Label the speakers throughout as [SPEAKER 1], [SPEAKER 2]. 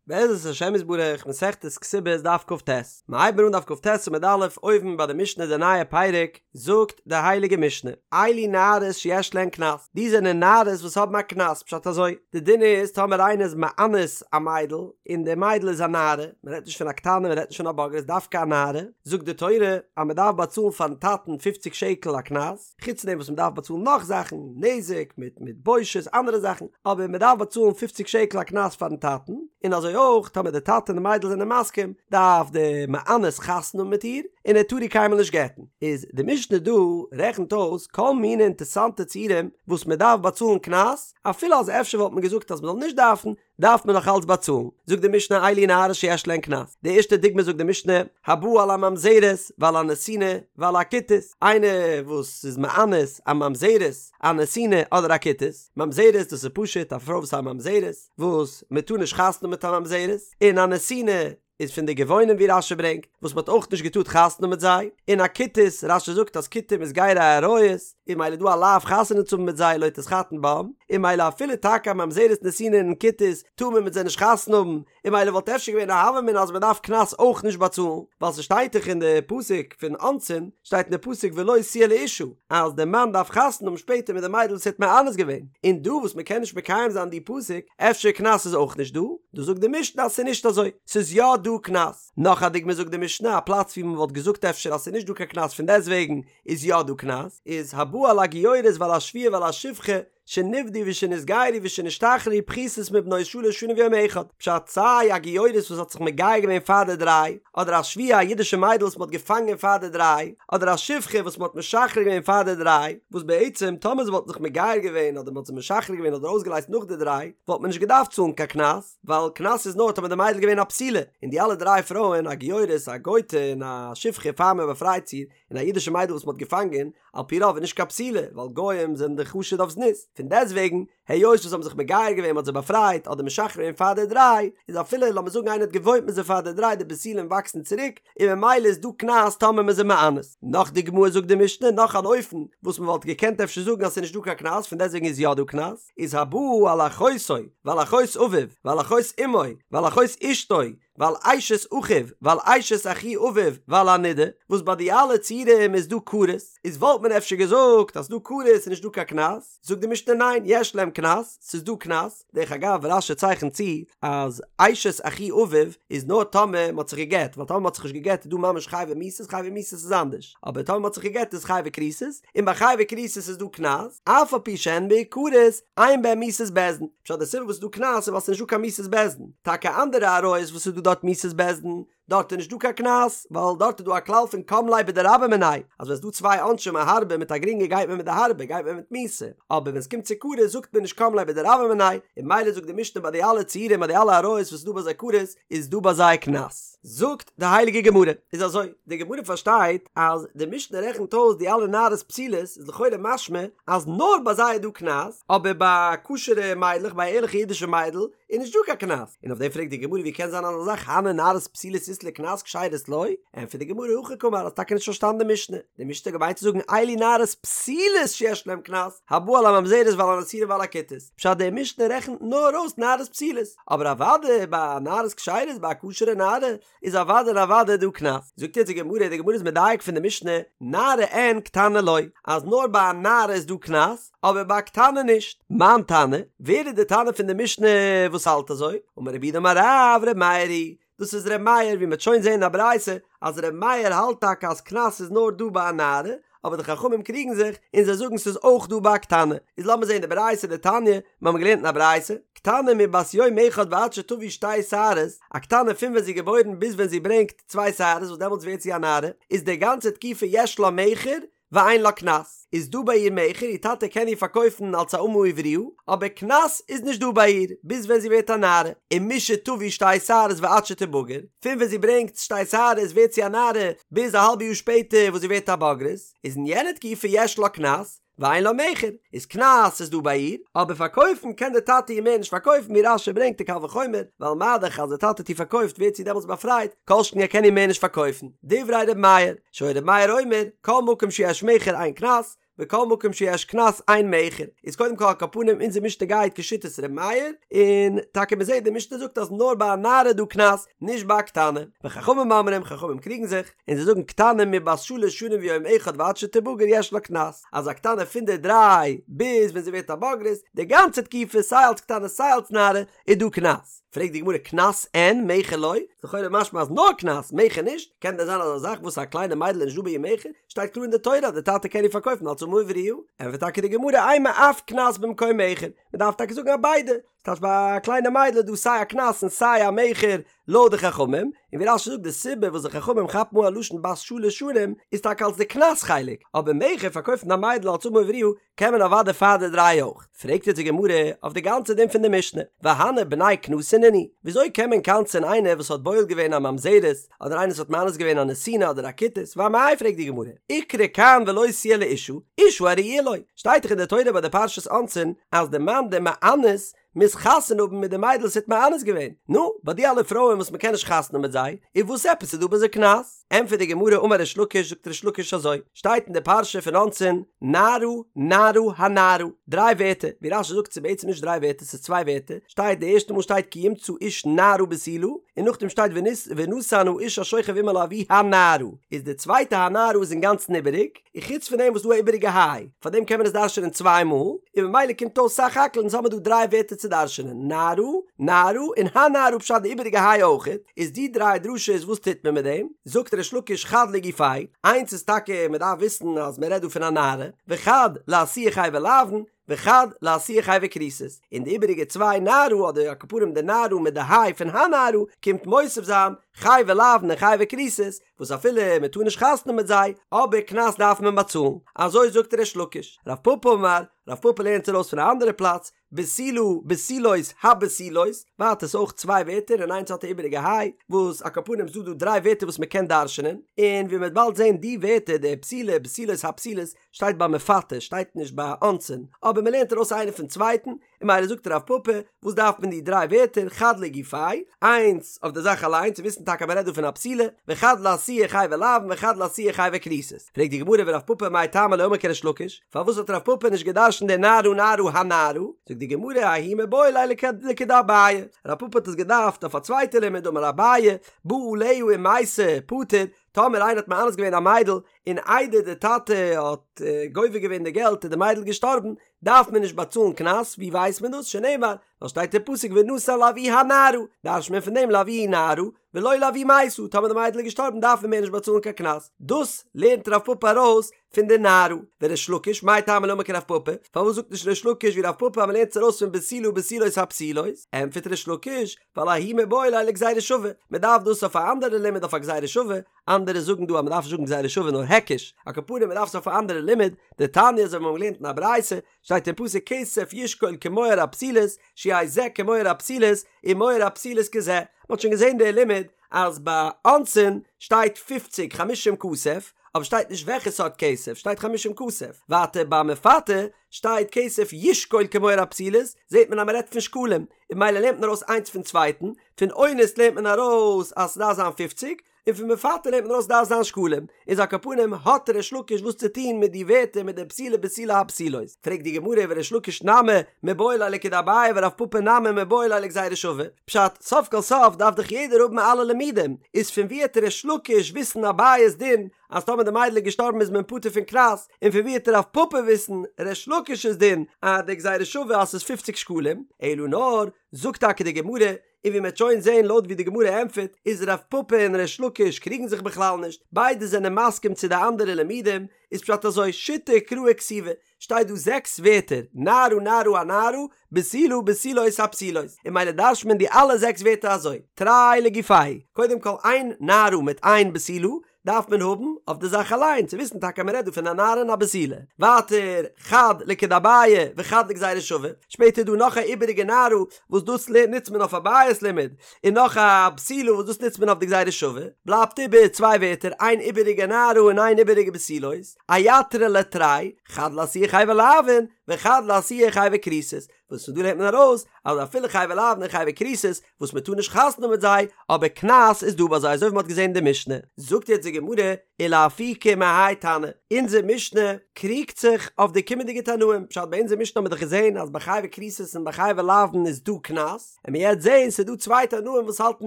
[SPEAKER 1] בעזרת השם יתברך, מסכת כתובות דף כ"ט, מ'הייבט אן דף כ"ט עמוד א', אויבן ביי די משנה די נייע פרק, זאגט די הייליגע משנה, אלו נערות שיש להן קנס, די זענען נערות וואס האבן א קנס, פשט אזוי, די דין איז טאמער איינער איז מאנס א מיידל, און די מיידל איז א נערה, מען רעדט נישט פון א קטנה מען רעדט נישט פון א בוגרת דווקא א נערה, זאגט די תורה אז מען דארף באצאלן פארן טאטן פופציג שקל א קנס, חוץ פון דעם וואס מ'דארף באצאלן נאך זאכן, נזק מיט מיט בושת אנדערע זאכן, אבער מ'דארף באצאלן פופציג שקל א קנס פארן טאטן, און אזוי אויך טאמער די טאטע און די מיידל זענען מסכים, דארף די מאנס חתונה האבן מיט איר, און ער טאר איר קיינמאל נישט גט'ן. איז די משנה דא רעכנט אויס כל מיני אינטערסאנטע ציורים וואס מ'דארף באצאלן קנס, אפילו אז אפשר וואלט מען געזאגט אז מ'זאל נישט דארפן, דארף מען נאך אלץ באצאלן, זאגט די משנה אלו נערות שיש להן קנס, די ערשטע דוגמא זאגט די משנה, הבא על הממזרת ועל הנתינה ועל הכותית, איינער וואס איז מאנס א ממזרת, א נתינה אדער א כותית, ממזרת דאס איז פשוט א פרוי וואס איז א ממזרת, וואס מען טאר נישט חתונה מיט א ממזרת, און א נתינה איז פון די גבעונים ווי רש"י ברענגט, וואס מען האט אויך נישט געטארט חתונה מיט זיי, און א כותית, רש"י זאגט אז כותים איז גירי אריות, און ממילא איז דא א לאו חתונה צו האבן מיט זיי לא תתחתן בם, און ממילא אפילו טאקע א ממזרת נתינה און כותית טאר מען מיט זיי נישט חתונה האבן, און ממילא וואלט אפשר געווען א הוה אמינא אז מען דארף קנס אויך נישט באצאלן, ווייל ס'שטייט דאך אין די פסוק פון אונסין, שטייט אין די פסוק ולו תהיה לאשה, אז די מאן דארף חתונה האבן שפעטער מיט די מיידל וואס ער האט מאנס געווען, און דא וואס מען קען נישט מקיים זיין די פסוק, אפשר קנס איז אויך נישט דא, דא זאגט די משנה אז ס'איז נישט אזוי, ס'איז יא דא קנס. נאך א דוגמא זאגט די משנה א פלאץ ווי מען וואלט געזאגט אפשר אז ס'איז נישט דא קיין קנס פון דעסוועגן איז יא דא קנס, איז הבא על הגיורת ועל השבויה ועל השפחה שנפדו ושנתגיירו ושנשתחררו פחותות מבנות שלש שנים ויום אחד, פשט סיי א גיורת וואס האט זיך מגייר געווען פאר די דריי, אדער א שבויה א אידישע מיידל וואס מען האט געפאנגען פאר די דריי, אדער א שפחה וואס מען האט משחרר געווען פאר די דריי, וואס בעצם טאמער זיי וואלטן זיך מגייר געווען אדער מען האט זיי משחרר געווען אדער אויסגעלייזט נאך די דריי, וואלט מען נישט געדארפט צאלן קיין קנס, ווייל קנס איז נאר טאמער די מיידל איז געווען א בתולה, און די אלע דריי פרויען, א גיורת, א גויטע און א שפחה פאר מען באפרייט זי, און א אידישע מיידל וואס מען האט געפאנגען, על פי רוב איז נישט קיין בתולה, ווייל גוים זענען דאך חשוד אויף זנות, פון דעסטוועגן, היות וואס זיי האבן זיך מגייר געווען, מען האט זיי באפרייט אדער משחרר געווען פאר די דריי, איז אפילו לאמיר זאגן איינער האט געוואוינט מיט זיי פאר די דריי, די בתולים וואקסן צוריק, און ממילא איז דא קנס טאמער מען איז זיי מאנס. נאך דוגמא זאגט די משנה נאך אן אופן וואס מען וואלט געקענט אפשר זאגן אז ס'איז נישט דא קיין קנס פון דעסטוועגן איז יא דא קנס, איז הבא על אחותו ועל אחות אביו ועל אחות אמו ועל אחות אשתו ועל אשת אחיו ועל אשת אחי אביו ועל הנידה, וואס ביי די אלע ציורים איז דא כרת, איז וואלט מען אפשר געזאגט אז ס'דא כרת איז נישט דא קיין קנס, זאגט די משנה ניין יש להם קנס, ס'איז דא קנס, דרך אגב רש"י צייכנט צו אז אשת אחי אביו איז נאר טאמער מ'האט זיך גע'גט, ווייל טאמער מ'האט זיך נישט גע'גט איז דא ממש חייבי מיתות, חייבי מיתות איז אנדערש, אבער טאמער מ'האט זיך גע'גט איז חייבי כריתות, און ביי חייבי כריתות איז דא קנס, אף על פי שהן מעוקרות, אין בהן מיתת בית דין. פשט די סיבה וואס איז דא קנס איז ווייל ס'איז נישט דא קיין מיתת בית דין. טאקע אנדערע עריות וואס איז דא דארט מיתת בית דין, דארט איז נישט דא קיין קנס, ווייל דארט איז דא א כלל פון קם ליה בדרבה מיניה, אז ווען ס'איז דא צוויי עונשים א הארבע מיט א גרינגע גייט מען מיט די הארבע, גייט מען מיט מיתה. אבער ווען ס'קומט צו כרת זאגט מען נישט קם ליה בדרבה מיניה, און ממילא זאגט די משנה ביי די אלע ציורים ביי די אלע עריות וואס איז דא ביי זיי כרת, איז דא ביי זיי קנס. זאגט די הייליגע גמרא, איז אזוי, די גמרא פארשטייט אז די משנה רעכנט אויס די אלע נערות פסולות, איז לכאורה משמע אז נאר ביי זיי איז דא קנס, אבער ביי כשר'ע מיידלעך, ביי א ערליכע אידישע מיידל, איז נישט דא קיין קנס, און אויף דעם פרעגט די גמרא ווי קען זיין אזא זאך הני נערות פסולות אית להו קנס כשרות לא, ענטפערט די גמרא הכי קאמר האסט טאקע נישט פארשטאנען די משנה, די משנה האט געמיינט צו זאגן אלו נערות פסולות שיש להם קנס, הבא על הממזרת ועל הנתינה ועל הכותית, פשט די משנה רעכנט נאר אויס נערות פסולות, אבער אוודאי ביי נערות כשרות ביי א כשר'ע נערה איז אוודאי און אוודאי דא קנס. זאגט יעצט די גמרא, די גמרא איז מדייק פון די משנה, נערה אין קטנה לא, אז נאר ביי א נערה איז דא קנס, אבער ביי א קטנה נישט. מאן תנא, ווער איז די תנא פון די משנה וואס האלט אזוי? אמר רב יהודה אמר רב, ר' מאיר היא דאס איז ר' מאיר, ווי מ'וועט שוין זען אין א ברייתא אז ר' מאיר האלט טאקע אז קנס איז נאר דא ביי א נערה, אבער די חכמים קריגן זיך און זיי זאגן ס'איז אויך דא ביי א קטנה. איז לאמיר זען די ברייתא דתניא, מיר האבן געלערנט אין א ברייתא, קטנה מבת יום אחד ועד שתביא שתי שערות, א קטנה פון ווען זי איז געבוירן ביז ווען זי ברענגט צוויי שערות וואס דעמאלטס ווערט זי א נערה, איז די גאנצע תקופה יש לה מכר ואין לה קנס, איז דא ביי איר מכר, איר טאטע קען איר פארקויפן אלס א אמה עבריה, אבער קנס איז נישט דא ביי איר, ביז ווען זי ווערט א נערה, ומשתביא שתי שערות ועד שתבגר, פון ווען זי ברענגט שתי שערות ווערט זי א נערה, ביז א האלבע יאר שפעטער וואס זי ווערט א בוגרת, איז אין יענע תקופה יש לה קנס, ואין לה מכר, איז קנס איז דא ביי איר, אבער פארקויפן קען די טאטע איר מער נישט פארקויפן ווי רש"י ברענגט די קל וחומר, ווייל מה דאך אז די טאטע האט איר פארקויפט ווערט זי דעמאלטס באפרייט, כל שכן ער קען איר מער נישט פארקויפן, דברי ר' מאיר, שהיה ר' מאיר אומר, כל מקום שיש מכר אין קנס, וכל מקום שיש קנס אין מכר, איז קודם כל על כל פנים אונזער משנה גייט כשיטת ר' מאיר, און טאקע מ'זעט די משנה זאגט אז נאר ביי א נערה איז דא קנס, נישט ביי א קטנה, וחכמים אומרים, חכמים קריגן זיך, און זיי זאגן קטנה מבת שלש שנים ויום אחד ועד שתבגר יש לה קנס, אז א קטנה פון די דריי ביז ווען זי ווערט א בוגרת, די גאנצע תקופה סיי אלס קטנה סיי אלס נערה איז דא קנס. פרעגט די גמרא קנס אין מכר לא? לכאורה משמע אז נאר קנס, מכר נישט, קען דען זיין אזא זאך וואס א קליינע מיידל איז נישט דא ביי איר מכר? שטייט קלאר אין די תורה אז די טאטע קען איר פארקויפן אלס אמה עבריה. ענטפערט טאקע די גמרא אימא אף קנס במקום מכר, מען דארף טאקע זאגן אז ביידע, ס'טייטש ביי א קליינע מיידל איז דא סיי א קנס און סיי א מכר לויט די חכמים, און ווי רש"י זאגט די סיבה וואס די חכמים כאפן אן א לשון בת שלש שנים איז טאקע אלס די קנס חלק, אבער מכר פארקויפן א מיידל אלס אמה עבריה קען מען אוודאי פאר די דריי אויך. פרעגט יעצט די גמרא אויף די גאנצע דין פון די משנה, והני בני קנסא נינהו, וויאזוי קען מען קנס'ען איינער וואס האט בועל געווען א ממזרת, אדער איינער וואס האט מאנס געווען א נתינה אדער א כותית, ואמאי פרעגט די גמרא, איקרי כאן ולא תהיה לאשה, אשה הראויה לו, שטייט דאך אין די תורה ביי די פרשת אונסין אז די מאן די מאנס מוז חתונה האבן מיט די מיידל וואס ער האט מאנס געווען, נו, ביי די אלע פרויען וואס מ'קען נישט חתונה האבן מיט זיי, איז וואס עפעס איז דא ביי זיי קנס? ענטפערט די גמרא אמר ריש לקיש זאגט ריש לקיש אזוי, שטייט אין די פרשה פון אונסין, נערה נערה הנערה, דריי ווערטער, ווי רש"י זאגט ס'איז בעצם נישט דריי ווערטער ס'איז צוויי ווערטער, שטייט די ערשטע מאל שטייט כי ימצא איש נערה בתולה, און נאכדעם שטייט ונתן האיש השוכב עמה לאבי הנערה, איז די צווייטע הנערה איז אינגאנצן איבעריג, און חוץ פון דעם וואס דא א איבעריגע היי, פאר דעם קען מען עס דרש'ענען צוויי מאל, און ממילא קומט אויס סך הכל אונז האמיר דא דריי ווערטער צו דרש'ענען, נערה, נערה, און הנערה פשט די איבעריגע היי אויכעט, איז די דריי דרשות וואס טוט מען מיט דעם? זאגט ריש לקיש חד לגופיה, איינס איז טאקע מען דארף וויסן אז מען רעדט דא פון א נערה, וחד לאתויי חייבי לאוין, וחד לאתויי חייבי כריתות, און די איבעריגע צוויי נערה אדער על כל פנים די נערה מיט די היי פון הנערה קומט מוסיף זיין חייבי לאוין און חייבי כריתות, וואס אפילו מען טאר נישט חתונה מיט זיי, אבער קנס דארף מען באצאלן, אזוי זאגט ריש לקיש. רב פפא אמר, רב פפא לערנט ארויס פון א אנדערע פלאץ, בתולה, בתולות, הבתולות, ווייטער ס'איז אויך צוויי ווערטער און איינס האט א איבעריגע היי, וואס על כל פנים ס'דא דא דריי ווערטער וואס מען קען דרש'נען, און ווי מ'וועט באלד זען די ווערטער די בתולה, בתולות, הבתולות, שטייט ביי מפתה, שטייט נישט ביי אונסין, אבער מ'לערנט ארויס איינער פון צווייטן, און ממילא זאגט רב פפא, וואס דארף מען די דריי ווערטער, חד לגופיה, איינס אויף די זאך אליין, צו וויסן טאקע אז מ'רעדט דא פון א בתולה, וחד לאתויי חייבי לאוין וחד לאתויי חייבי כריתות. פרעגט די גמרא ורב פפא מאי טעמא לא אמר כריש לקיש, פארוואס האט רב פפא נישט גע'דרש'נט די נערה נערה הנערה? זאגט די גמרא ההוא מיבעי ליה לכדאביי, רב פפא האט עס געדארפט אויף א צווייטע לימוד דאמר אביי, בא עליה ומתה, פטור, טאמער איינער האט מאנס געווען א מיידל און איידער די טאטע האט גובה געווען די געלט איז די מיידל געשטארבן, דארף מען נישט באצאלן קנס, ווי ווייסט מען דאס? שנאמר, ווייל שטייט אין פסוק ונתן לאבי הנערה, דרש'ט מען פון דעם לאבי נערה, ולא לאבי מתה, טאמער די מיידל איז געשטארבן דארף מען מער נישט באצאלן קיין קנס, דאס לערנט רב פפא ארויס פון די נערה, וריש לקיש, מאי טעמא לא אמר כרב פפא, פארוואס זאגט נישט ריש לקיש ווי רב פפא אז מען לערנט עס ארויס פון בתולה בתולות הבתולות, ענטפערט ריש לקיש, ווייל ההוא מיבעי ליה לגזירה שווה, מען דארף דאס אויף א אנדערע לימוד אויף א גזירה שווה, אנדערע זאגן דא אז מען דארף נישט זאגן גזירה שווה נאר היקש, על כל פנים מען דארף עס אויף א אנדערע לימוד, דתניא אזוי ווי מיר האבן געלערנט אין א ברייתא, שטייט אין פסוק כסף ישקול כמוהר הבתולות, שיהא זה כמוהר הבתולות, ומוהר הבתולות כזה, מען האט שוין געזען די לימוד אז ביי אונסין שטייט פופציג חמישים כסף, אבער שטייט נישט וועלכע סארט כסף, שטייט חמישים כסף, ווייטער ביי מפתה שטייט כסף ישקול כמוהר הבתולות, זעט מען אז מען רעדט פון שקלים, און ממילא לערנט מען ארויס איינס פון צווייטן, פון אונס לערנט מען ארויס אז ס'דארף זיין פופציג, און פון מפתה לערנט מען ארויס ס'דארף זיין שקלים, איז על כל פנים האט ריש לקיש וואס צו טון מיט די ווערטער מיט די בתולה בתולה הבתולות, פרעגט די גמרא וריש לקיש נמי מיבעי ליה לכדאביי ורב פפא נמי מיבעי ליה לגזירה שווה, פשט, סוף כל סוף דארף דאך יעדער האבן אלע לימודים, איז פון ווי העט ריש לקיש וויסן אביי'ס דין אז טאמער די מיידל איז געשטארבן איז מען פטור פון קנס, און פון ווי העט רב פפא וויסן ריש לקיש'ס דין אז די גזירה שווה אז ס'איז פופציג שקלים, אלא נאר, זאגט טאקע די גמרא, און ווי מ'עט שוין זעהן לויט ווי די גמרא ענטפערט איז רב פפא און ריש לקיש קריגן זיך בכלל נישט, ביידע זענען מסכים צו די אנדערע לימודים, איז פשט אזוי, שיתא קראי כתיבי, שטייט דא זעקס ווערטער, נערה נערה הנערה, בתולה בתולות הבתולות, און ממילא דרש'ט מען די אלע זעקס ווערטער אזוי, תרי לגופייהו, קודם כל איין נערה מיט איין בתולה, דארף מען האבן אויף די זאך אליין צו וויסן טאקע אז מען רעדט דא פון א נערה און א בתולה. ווייטער, חד לכדאביי וחד לגזירה שווה, שפעטער איז דא נאך א איבעריגע נערה וואס דאס נוצט מען אויף אביי'ס לימוד, און נאך א בתולה וואס דאס נוצט מען אויף די גזירה שווה, בלייבט איבער צוויי ווערטער איין איבעריגע נערה און איין איבעריגע בתולות, אייתרו ליה תרי, חד לאתויי חייבי לאוין וחד לאתויי חייבי כריתות, וואס פון דא לערנט מען ארויס אז אפילו חייבי לאוין און חייבי כריתות וואס מען טאר נישט חתונה האבן מיט זיי, אבער קנס איז דא ביי זיי אזוי ווי מען האט געזען אין די משנה. זאגט יעצט די גמרא, ולאפוקי מהאי תנא, אונזער משנה קריגט זיך אויף די קומענדיגע תנאים, פשט ביי אונזער משנה האבן מיר דאך געזען אז ביי חייבי כריתות און ביי חייבי לאוין איז דא קנס, און מיר יעצט זעהן ס'איז דא צוויי תנאים וואס האלטן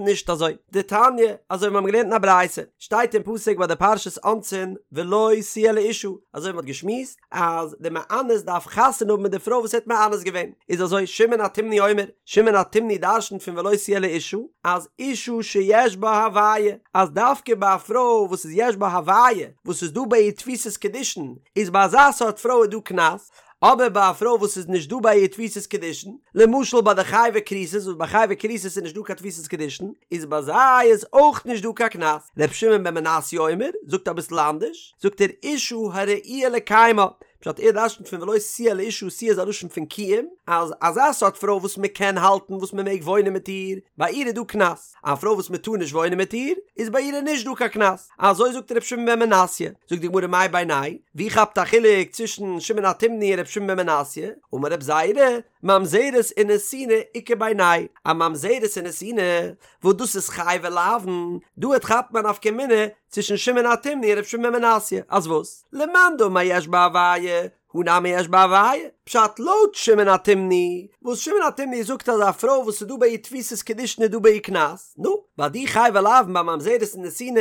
[SPEAKER 1] נישט אזוי, דתניא, אזוי ווי מיר האבן געלערנט אין א ברייתא, שטייט אין פסוק ביי די פרשת אונסין ולו תהיה לאשה, אזוי ווי מ'האט געשמועסט אז די מאנס דארף חתונה האבן מיט די פרוי וואס ער האט מאנס געווען, איז אזוי שמעון התימני אומר, שמעון התימני דרשנ'ט פון ולו תהיה לאשה, אז אשה שיש בה הוויה, אז דווקא ביי א פרוי וואס איז יש בה הוויה, וואס איז דא ביי איר תפיסת קידושין, איז ביי אזא סארט פרוי איז דא קנס, אבער ביי א פרוי וואס איז נישט דא ביי איר תפיסת קידושין, למשל ביי די חייבי כריתות וואס ביי חייבי כריתות איז נישט דא קיין תפיסת קידושין, איז ביי זיי איז אויך נישט דא קיין קנס. ר' שמעון בן מנסיא אומר, זאגט אביסל אנדערש, זאגט ער אשה הראויה לקיימה, פשט ער דרשנ'ט פון ולו תהיה לאשה תהיה איז א לשון פון קיום, אז אזא סארט פרוי וואס מען קען האלטן וואס מען מעג וואוינען מיט איר, ביי איר איז דא קנס. א פרוי וואס מען טאר נישט וואוינען מיט איר, איז ביי איר איז נישט דא קיין קנס. אזוי זאגט ר' שמעון בן מנסיא. זאגט די גמרא מאי בינייהו ווי כאפט א חילוק צווישן שמעון התימני און ר' שמעון בן מנסיא? אמר רב זירא, ממזרת ונתינה איכא בינייהו, א ממזרת און נתינה, וואס דאס איז חייבי לאוין, דא העט כאפט מען א נפקא מינה צווישן שמעון התימני און ר' שמעון בן מנסיא, אז וואס? למאן דאמר יש בה הוויה, הא נמי יש בה הוויה, פשט לויט שמעון התימני, וואס שמעון התימני זאגט אז א פרוי וואס איז דא ביי איר תפיסת קידושין איז דא ביי איר קנס, נו, ביי די חייבי לאוין ביי ממזרת און נתינה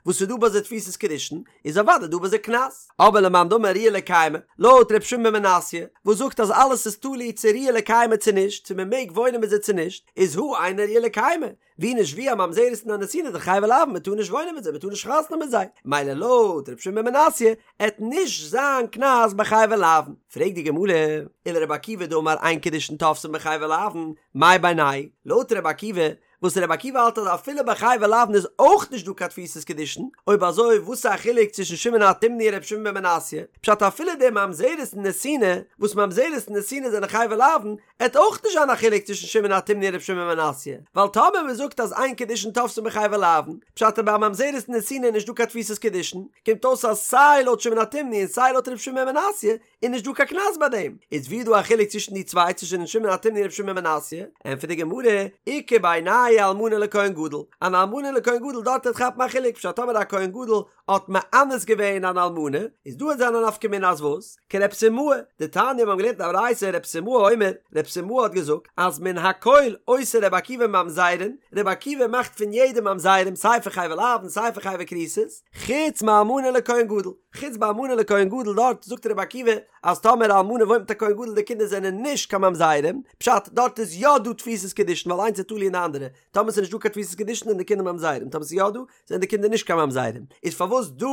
[SPEAKER 1] וואס איז דא ביי זיי תפיסת קידושין, איז אוודאי דא ביי זיי קנס. אבער למאן דאמר ראויה לקיימה, לויט ר' שמעון בן מנסיא, וואס זאגט אז אלעס איז תלוי צו ראויה לקיימה צו נישט, צו מען מעג וואוינען מיט זיי צו נישט, איז הא אינה ראויה לקיימה, ווי נישט ווי א ממזרת און א נתינה די חייבי לאוין מען טאר נישט וואוינען מיט זיי מען טאר נישט חתונה מיט זיי מילא לויט ר' שמעון בן מנסיא עט נישט זיין קנס ביי חייבי לאוין פרעגט די גמרא ולר' עקיבא דאמר אין קידושין תופסין בחייבי לאוין מאי בינייהו לויט ר' עקיבא וואס ר' עקיבא האלט אז אפילו ביי חייבי לאוין איז אויך נישט דא קיין תפיסת קידושין אויב אזוי וואס איז א חילוק צווישן שמעון התימני און ר' שמעון בן מנסיא פשט אפילו די ממזרת און נתינה וואס ממזרת און נתינה זענען חייבי לאוין עט אויך נישט זיין א חילוק צווישן שמעון התימני און ר' שמעון בן מנסיא, ווייל טאמער מען זאגט אז אין קידושין תופסין בחייבי לאוין, פשט אז ביי א ממזרת און נתינה איז נישט דא קיין תפיסת קידושין, קומט אויס אז סיי לויט שמעון התימני און סיי לויט ר' שמעון בן מנסיא איז נישט דא קיין קנס ביי דעם, איז ווי איז דא א חילוק צווישן די צוויי צווישן שמעון התימני און ר' שמעון בן מנסיא? ענטפערט די גמרא, איכא בינייהו אלמנה לכהן גדול, אן אלמנה לכהן גדול דארט עט כאפן א חילוק פשט טאמער א כהן גדול האט מאנס געווען אן אלמנה, איז דא עט זיין א נפקא מינה אז וואס? כרב סימאי, דתניא מיר האבן געלערנט אין א ברייתא רב סימאי אומר, רב סימאי האט געזאגט אז מן הכל עושה רבי עקיבא ממזרים, רבי עקיבא מאכט פון יעדעם ממזרים סיי פון חייבי לאוין סיי פון חייבי כריתות, חוץ מאלמנה לכהן גדול, חוץ ביי אלמנה לכהן גדול דארט זאגט רבי עקיבא אז טאמער א אלמנה וואוינט מיט א כהן גדול די קינדער זענען נישט קיין ממזרים, פשט דארט איז יא דא תפיסת קידושין ווייל איינס איז תלוי אין די אנדערע, טאמער ס'איז נישט דא קיין תפיסת קידושין זענען די קינדער ממזרים, טאמער ס'איז יא דא זענען די קינדער נישט קיין ממזרים, איז פארוואס דא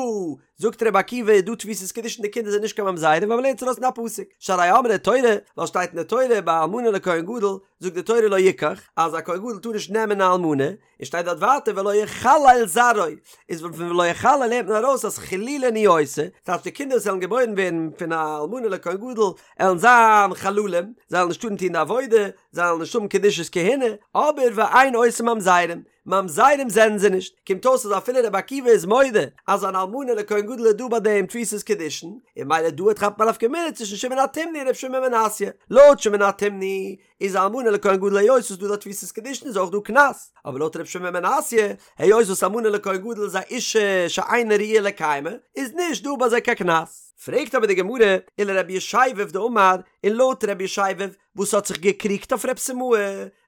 [SPEAKER 1] זאגט רבי עקיבא איז דא תפיסת קידושין די קינדער זענען נישט קיין ממזרים ווייל מ'לערנט עס ארויס פון א פסוק שהרי אמרה תורה ווייל שטייט אין די תורה ביי אלמנה לכהן גדול זאגט די תורה לא יקח אז א כהן גדול טאר נישט נעמען א אלמנה און שטייט דארט ווייטער ולא יחלל זרעו איז פון ולא יחלל לערנט מען ארויס אז חילולין הוא עושה ס'טייטש די קינדער וואס וועלן געבוירן ווערן פון א אלמנה לכהן גדול עלן זיין חללים זיי וועלן נישט טארן טון די עבודה זיי וועלן נישט האבן קדושת כהונה אבער ואין עושה ממזרים ממזרים זענען זיי נישט, קומט אויס אז אפילו רבי עקיבא איז מודה אז אן אלמנה לכהן גדול איז דא ביי דעם תפיסת קידושין, און ממילא דא עט כאפט מען א נפקא מינה צווישן שמעון התימני און רבי שמעון בן מנסיא, לויט שמעון התימני איז אלמנה לכהן גדול היות וואס דא דא תפיסת קידושין איז אויך דא קנס, אבער לויט רבי שמעון בן מנסיא היות וואס אלמנה לכהן גדול איז א אישה שאינה ראויה לקיימה איז נישט דא ביי זיי קיין קנס. פרעגט אבער די גמרא, ולרבי ישבב דאמר, און לויט רבי ישבב וואס האט זיך געקריגט אויף רב סימאי,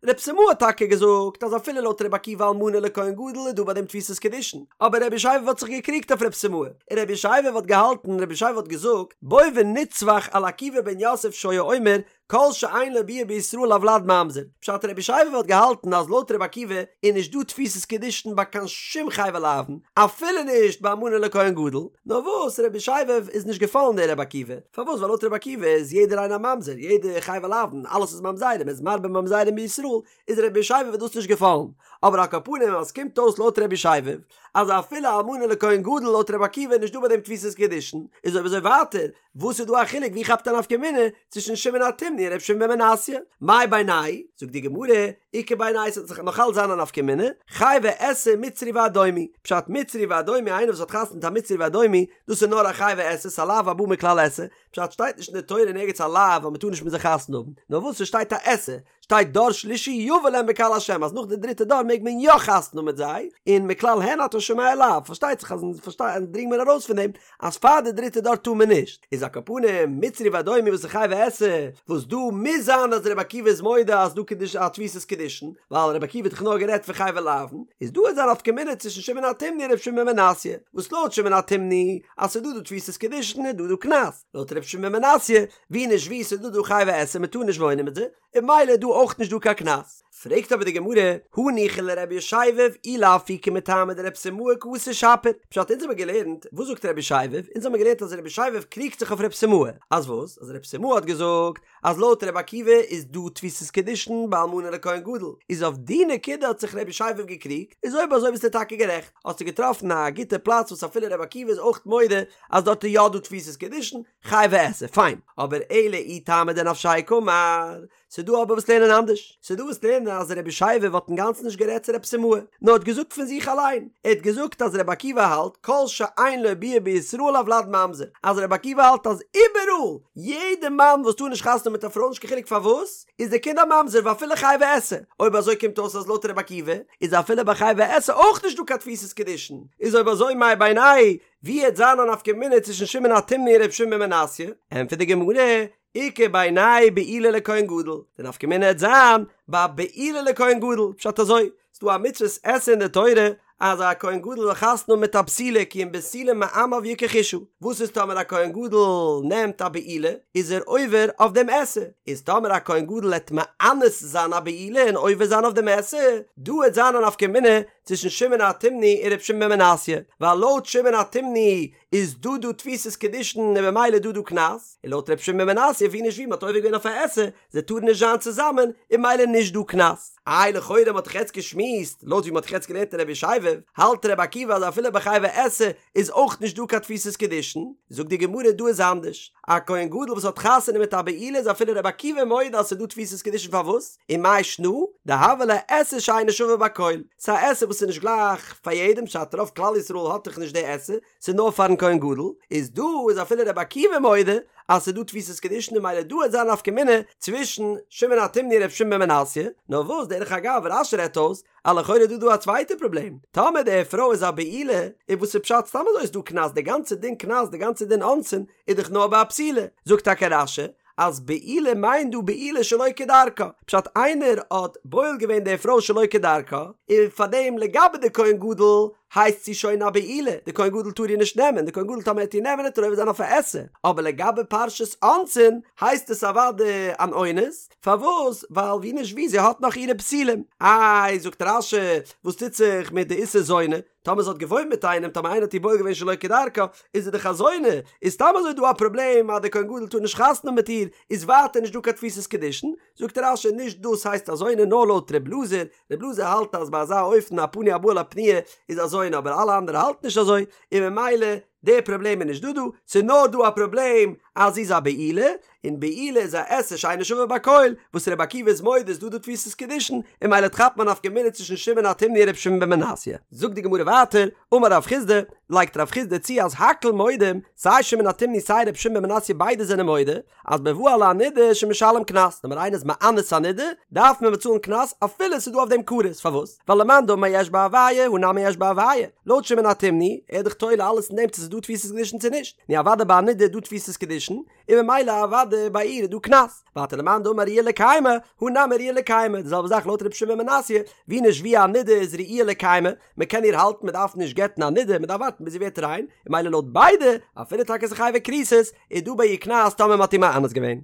[SPEAKER 1] רב סימאי האט טאקע געזאגט אז אפילו לויט רבי עקיבא אלמנה לכהן גדול איז דא ביי דעם תפיסת קידושין, אבער רבי ישבב האט זיך געקריגט אויף רב סימאי, און רבי ישבב האט געהאלטן, רבי ישבב האט געזאגט, בוא ונצווח על עקיבא בן יוסף שהיה אומר כל שאין לו ביאה בישראל הולד ממזר, פשט רבי ישבב האט געהאלטן אז לויט רבי עקיבא איז נישט דא תפיסת קידושין ביי קיין שום חייבי לאוין, אפילו נישט ביי אלמנה לכהן גדול, נאר וואס רבי ישבב איז נישט געפאלן דער רבי עקיבא, פארוואס ווייל לויט רבי עקיבא איז יעדער איינער א ממזר, יעדער חייבי לאוין, אלעס איז ממזרים, איז מרבה ממזרים בישראל, איז רבי ישבב דאס נישט געפאלן, אבער על כל פנים אז ס'קומט אויס לויט רבי ישבב אז אפילו אלמנה לכהן גדול לויט רבי עקיבא איז נישט דא ביי דעם תפיסת קידושין, איז אויב אזוי ווייטער וואס איז דא א חילוק ווי כאפט א נפקא מינה צווישן שמעון התימני און ר' שמעון בן מנסיא? מאי בינייהו? זאגט די גמרא, איכא בינייהו ס'וועט זיך נאך אלץ זיין א נפקא מינה, חייבי עשה מצרי ואדומי, פשט מצרי ואדומי איינער וואס האט חתונה מיט א מצרי ואדומי דאס איז נאר א חייבי עשה ס'א לאו הבא מכלל עשה, פשט שטייט נישט אין די תורה אין ערגעץ א לאו אז מ'טאר נישט מיט זיי חתונה האבן, נאר וואס ס'שטייט א עשה. שטייט דור שלישי יבא להם בקהל השם אז נאך די דריטע דור מעג מען יא חתונה האבן מיט זיי, און מכלל הן אתה שומע לאו, פארשטייט זיך אז אונז פארשטיי דרינגט מען ארויס פון דעם אז פאר די דריטע דור טאר מען נישט, איז על כל פנים מצרי ואדומי וואס איז חייבי עשה, וואס דא מוז זיין אז רבי עקיבא איז מודה אז דא קידוש א תפיסת קידושין, ווייל רבי עקיבא האט דאך נאר גערעדט פון חייבי לאוין, איז דא איז א נפקא מינה צווישן שמעון התימני און רבי שמעון בן מנסיא, וואס לויט שמעון התימני אז ס'איז דא דא תפיסת קידושין איז דא דא קנס, לויט רבי שמעון בן מנסיא ווי נישט ווי ס'איז דא דא חייבי עשה מ'טאר נישט וואוינען מיט זיי, און ממילא איז דא אויך נישט דא קיין קנס. פרעגט אבער די גמרא, הניחא לרבי ישבב אי לאפוקי מטעמא דרב סימאי קאתי שפיר, פשט אונז האמיר געלערנט, וואס זאגט רבי ישבב, אונז האמיר געלערנט אז רבי ישבב קריגט זיך אויף רב סימאי, אז וואס? אז רב סימאי האט געזאגט אז לויט רבי עקיבא איז דא תפיסת קידושין ביי אלמנה לכהן גדול, איז אויף די נקודה האט זיך רבי ישבב געקריגט, איז אויב אזוי ביסטו טאקע גערעכט, האסטו געטראפן א גוטע פלאץ וואס אפילו רבי עקיבא איז אויך מודה אז דארט איז יא דא תפיסת קידושין, חייבי עשה, פיין, אבער אלא אי טעמא דנפשיה קאמר, ס'דא אבער וואס לערנען אנדערש, ס'דא וואס לערנען אז רבי ישבב האט אינגאנצן נישט גערעדט צו רב סימאי, נאר האט געזאגט פון זיך אליין, ער האט געזאגט אז רבי עקיבא האלט כל שאין לו ביאה בישראל הולד ממזר, אז רבי עקיבא האלט אז איבעראל, יעדע מאן וואס טאר נישט חתונה האבן מיט א פרוי נישט קיין חילוק פארוואס, איז די קינד א ממזר ואפילו חייבי עשה, אויב אזוי קומט אויס אז לויט רבי עקיבא איז אפילו ביי חייבי עשה אויך נישט דא קיין תפיסת קידושין, איז אויב אזוי מאי בינייהו ווי העט זיין א נפקא מינה צווישן שמעון התימני און ר' שמעון בן מנסיא? ענטפערט די גמרא, איכא בינייהו בעילה לכהן גדול, די נפקא מינה העט זיין ביי בעילה לכהן גדול, פשט אזוי, ס'דא א מצוות עשה אין די תורה אז א כהן גדול זאל חתונה האבן מיט א בתולה כי אם בתולה מעמיו יקח אשה, וואס איז טאמער א כהן גדול נעמט א בעילה איז ער עובר אויף דעם עשה, איז טאמער א כהן גדול העט מאנס זיין א בעילה און עובר זיין אויף דעם עשה, דא העט זיין א נפקא מינה צווישן שמעון התימני און ר' שמעון בן מנסיא, ווייל לויט שמעון התימני איז דא דא תפיסת קידושין און במילא איז דא דא קנס, און לויט ר' שמעון בן מנסיא ווי נישט ווי מ'האט עובר געווען אויף א עשה, זיי טארן נישט זיין צוזאמען, און במילא נישט דא קנס. איי לכאורה מ'האט דאך יעצט געשמועסט, לויט ווי מ'האט דאך יעצט געלערנט אין רבי ישבב, האלט רבי עקיבא אז אפילו ביי חייבי עשה איז אויך נישט דא קיין תפיסת קידושין, זאגט די גמרא דא איז אנדערש, א כהן גדול וואס האט חתונה מיט א בעולה איז אפילו רבי עקיבא מודה אז ס'איז דא תפיסת קידושין פארוואס? ומאי שנא? דהוה ליה עשה שאינה שווה בכל, ס'איז א עשה וואס איז נישט גלייך פאר יעדעם פשט רוב כלל ישראל האט דאך נישט די עשה, ס'איז נאר פארן כהן גדול, איז דא איז אפילו רבי עקיבא מודה אז ס'איז דא תפיסת קידושין און ממילא דא וועט זיין נפקא מינה צווישן שמעון התימני און ר' שמעון בן מנסיא, נאר וואס דרך אגב רש"י רעדט אויס אז לכאורה איז דא דא א צווייטע פראבלעם, טאמער די פרוי איז א בעולה, איז וואס איז פשט סתם אזוי איז דא קנס, די גאנצע דין קנס די גאנצע דין אונסין איז דאך נאר ביי א בתולה, זאגט טאקע רש"י אז בעילה מיינט דא בעילה שלא כדרכה, פשט איינער האט בועל געווען די פרוי שלא כדרכה, און פארדעם לגבי די כהן גדול הייסט זי שוין א בעולה, די כהן גדול טאר איר נישט נעמען, די כהן גדול טאמער ער וועט איר נעמען וועט ער עובר זיין אויף א עשה, אבער לגבי פרשת אונסין הייסט עס אוודאי אן אונס, פארוואס? ווייל ווי נישט ווי זי האט נאך אירע בתולים. איי זאגט רש"י וואס טוט זיך מיט די איסור זונה? טאמער זי האט געוואוינט מיט איינעם, טאמער איינער האט איר בועל געווען שלא כדרכה, איז זי דאך א זונה, איז סתם אזוי דא א פראבלעם אז דער כהן גדול טאר נישט חתונה האבן מיט איר, איז ווייטער נישט דא קיין תפיסת קידושין, זאגט רש"י נישט דאס הייסט א זונה נאר לויט ר' אלעזר, ר' אלעזר האלט אז ביי אזא אופן א פנוי הבא על הפנויה איז א זונה אבער אלע אנדערע האלטן נישט אזוי, און ממילא די פראבלעם איז נישט דא דא, ס'איז נאר דא א פראבלעם אז זי איז א בעולה, און בעילה איז א עשה שאינה שווה בכל, וואס רבי עקיבא איז מודה איז דא דא תפיסת קידושין, און ממילא כאפט מען א נפקא מינה צווישן שמעון התימני און רבי שמעון בן מנסיא. זאגט די גמרא ווייטער, אמר רב חסדא, לייגט רב חסדא צו אז הכל מודים, סיי שמעון התימני סיי רבי שמעון בן מנסיא ביידע זענען מודה, אז בבא על הנידה שמשלם קנס, טאמער איינער איז מאנס א נידה, דארף מען באצאלן קנס אפילו ס'איז דא אויף דעם כרת, פארוואס? ווייל למאן דאמר יש בה הוויה, הא נמי יש בה הוויה, לויט שמעון התימני, ער איז דאך תולה אלעס אין דעם צו ס'איז דא תפיסת קידושין צו נישט, נו אוודאי ביי א נידה איז דא תפיסת קידושין, און ממילא אוודאי ביי איר איז דא קנס, ווייטער למאן דאמר ראויה לקיימא, הא נמי ראויה לקיימא, די זעלבע זאך לויט רבי שמעון בן מנסיא, ווי נישט ווי א נידה איז ראויה לקיימא, מען קען איר האלטן מען דארף נישט גט'ן א נידה, מען דארף ווארטן ביז זי ווערט ריין, און ממילא לויט ביידע, אפילו טאקע ס'איז חייבי כריתות, איז דא ביי איר קנס טאמער מען האט איר מאנס געווען.